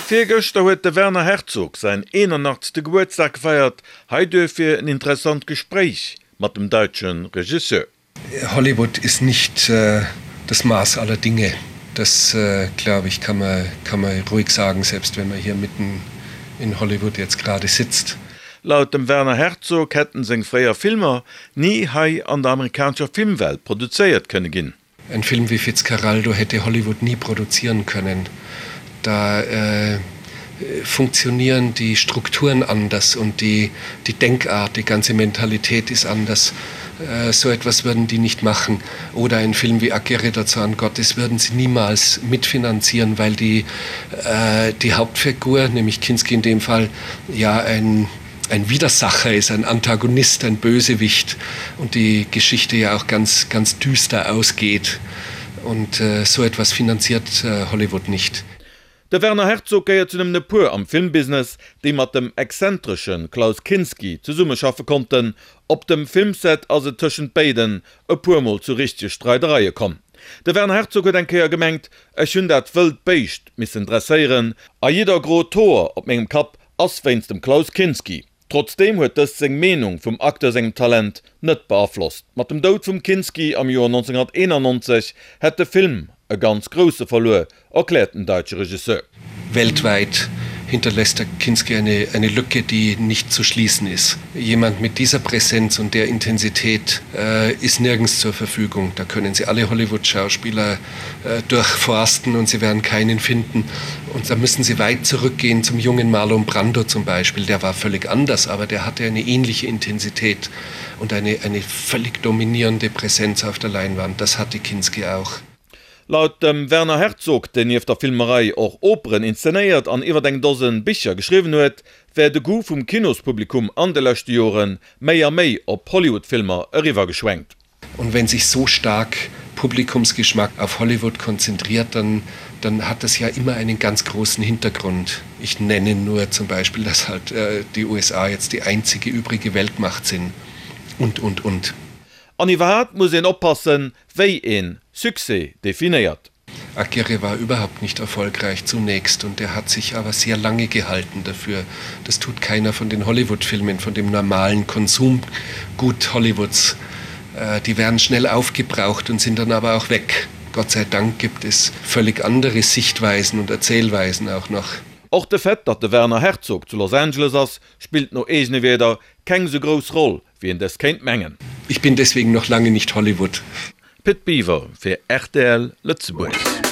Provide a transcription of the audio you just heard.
Virgëschter huet de Werner Herzog säin 81. Gebuertsdag gefeiert. Hei duerfir en interessant Gespréich mat dem daitsche Regisseur. Hollywood ist nicht das Maß aller Dinge. Das glaube ich kann man, kann man ruhig sagen, selbst wenn man hier mitten in Hollywood jetzt gerade sitzt. Laut dem Werner Herzog hätten seng fréier Filmer ni hei an der amerikanescher Filmwelt produzéiert kënne ginn. Ein Film wie Fitzcarraldo hätte Hollywood nie produzieren können. Da äh, funktionieren die Strukturen anders und die, die Denkart, die ganze Mentalität ist anders. Äh, so etwas würden die nicht machen. Oder ein Film wie Aguirre dazu an Gottes würden sie niemals mitfinanzieren, weil die, äh, die Hauptfigur, nämlich Kinski in dem Fall, ja ein, ein Widersacher ist, ein Antagonist, ein Bösewicht und die Geschichte ja auch ganz, ganz düster ausgeht. Und äh, so etwas finanziert äh, Hollywood nicht. De Werner Herzog gehéiert zu nëmmen e puer am Filmbusiness, déi mat dem exzentresche Klaus Kinski zesummeschaffe konnten. Op dem Filmset ass et tëschent béiden e puer Mol zu richtege Streidereie komm. De Werner Herzog huet eng Kéier gemengt, Ech hunn dat wëllt Béischt missen dresséieren a jidder grot Hoer op mengem Kapp ass wéinst dem Klaus Kinski. Trotzdeem huet dëst seng Meenung vum Acteur sengem Talent net beaflosst. Mat dem Doud vum Kinski am Joer 1991 hätt de Film e ganz grousse verluer, erkläert den daitsche Regisseur. Weltweit hinterlässt der Kinski eine, eine Lücke, die nicht zu schließen ist. Jemand mit dieser Präsenz und der Intensität äh, ist nirgends zur Verfügung. Da können Sie alle Hollywood-Schauspieler äh, durchforsten und sie werden keinen finden. Und da müssen Sie weit zurückgehen zum jungen Marlon Brando zum Beispiel. Der war völlig anders, aber der hatte eine ähnliche Intensität und eine, eine völlig dominierende Präsenz auf der Leinwand. Das hatte Kinski auch. Laut dem Werner Herzog, deen nieft der Filmerei och Operen inszenéiert an iwwer eng Dosen Bicher geschriwwen huet, wär de Goût vum Kinospublikum an de leschte Jore méi a méi op Hollywood-Filmer eriwwergeschwenkt. Und wenn sich so stark Publikumsgeschmack auf Hollywood konzentriert, dann, dann hat das ja immer einen ganz großen Hintergrund. Ich nenne nur zum Beispiel, dass halt äh, die USA jetzt die einzige übrige Weltmacht sind und und und. An iwwerhaapt muss een oppassen, wéi een Succès definéiert. Aguirre war überhaupt nicht erfolgreich zunächst und er hat sich aber sehr lange gehalten dafür. Das tut keiner von den Hollywood-Filmen, von dem normalen Konsumgut Hollywoods. Äh, die werden schnell aufgebraucht und sind dann aber auch weg. Gott sei Dank gibt es völlig andere Sichtweisen und Erzählweisen auch noch. Och de Fait, datt de Werner Herzog zu Los Angeles ass, spillt no eegene Wierder keng sou grouss Roll, wéi een dës kéint mengen. Ich bin deswegen noch lange nicht Hollywood. Pit Biwer fir rtl Lëtzebuerg.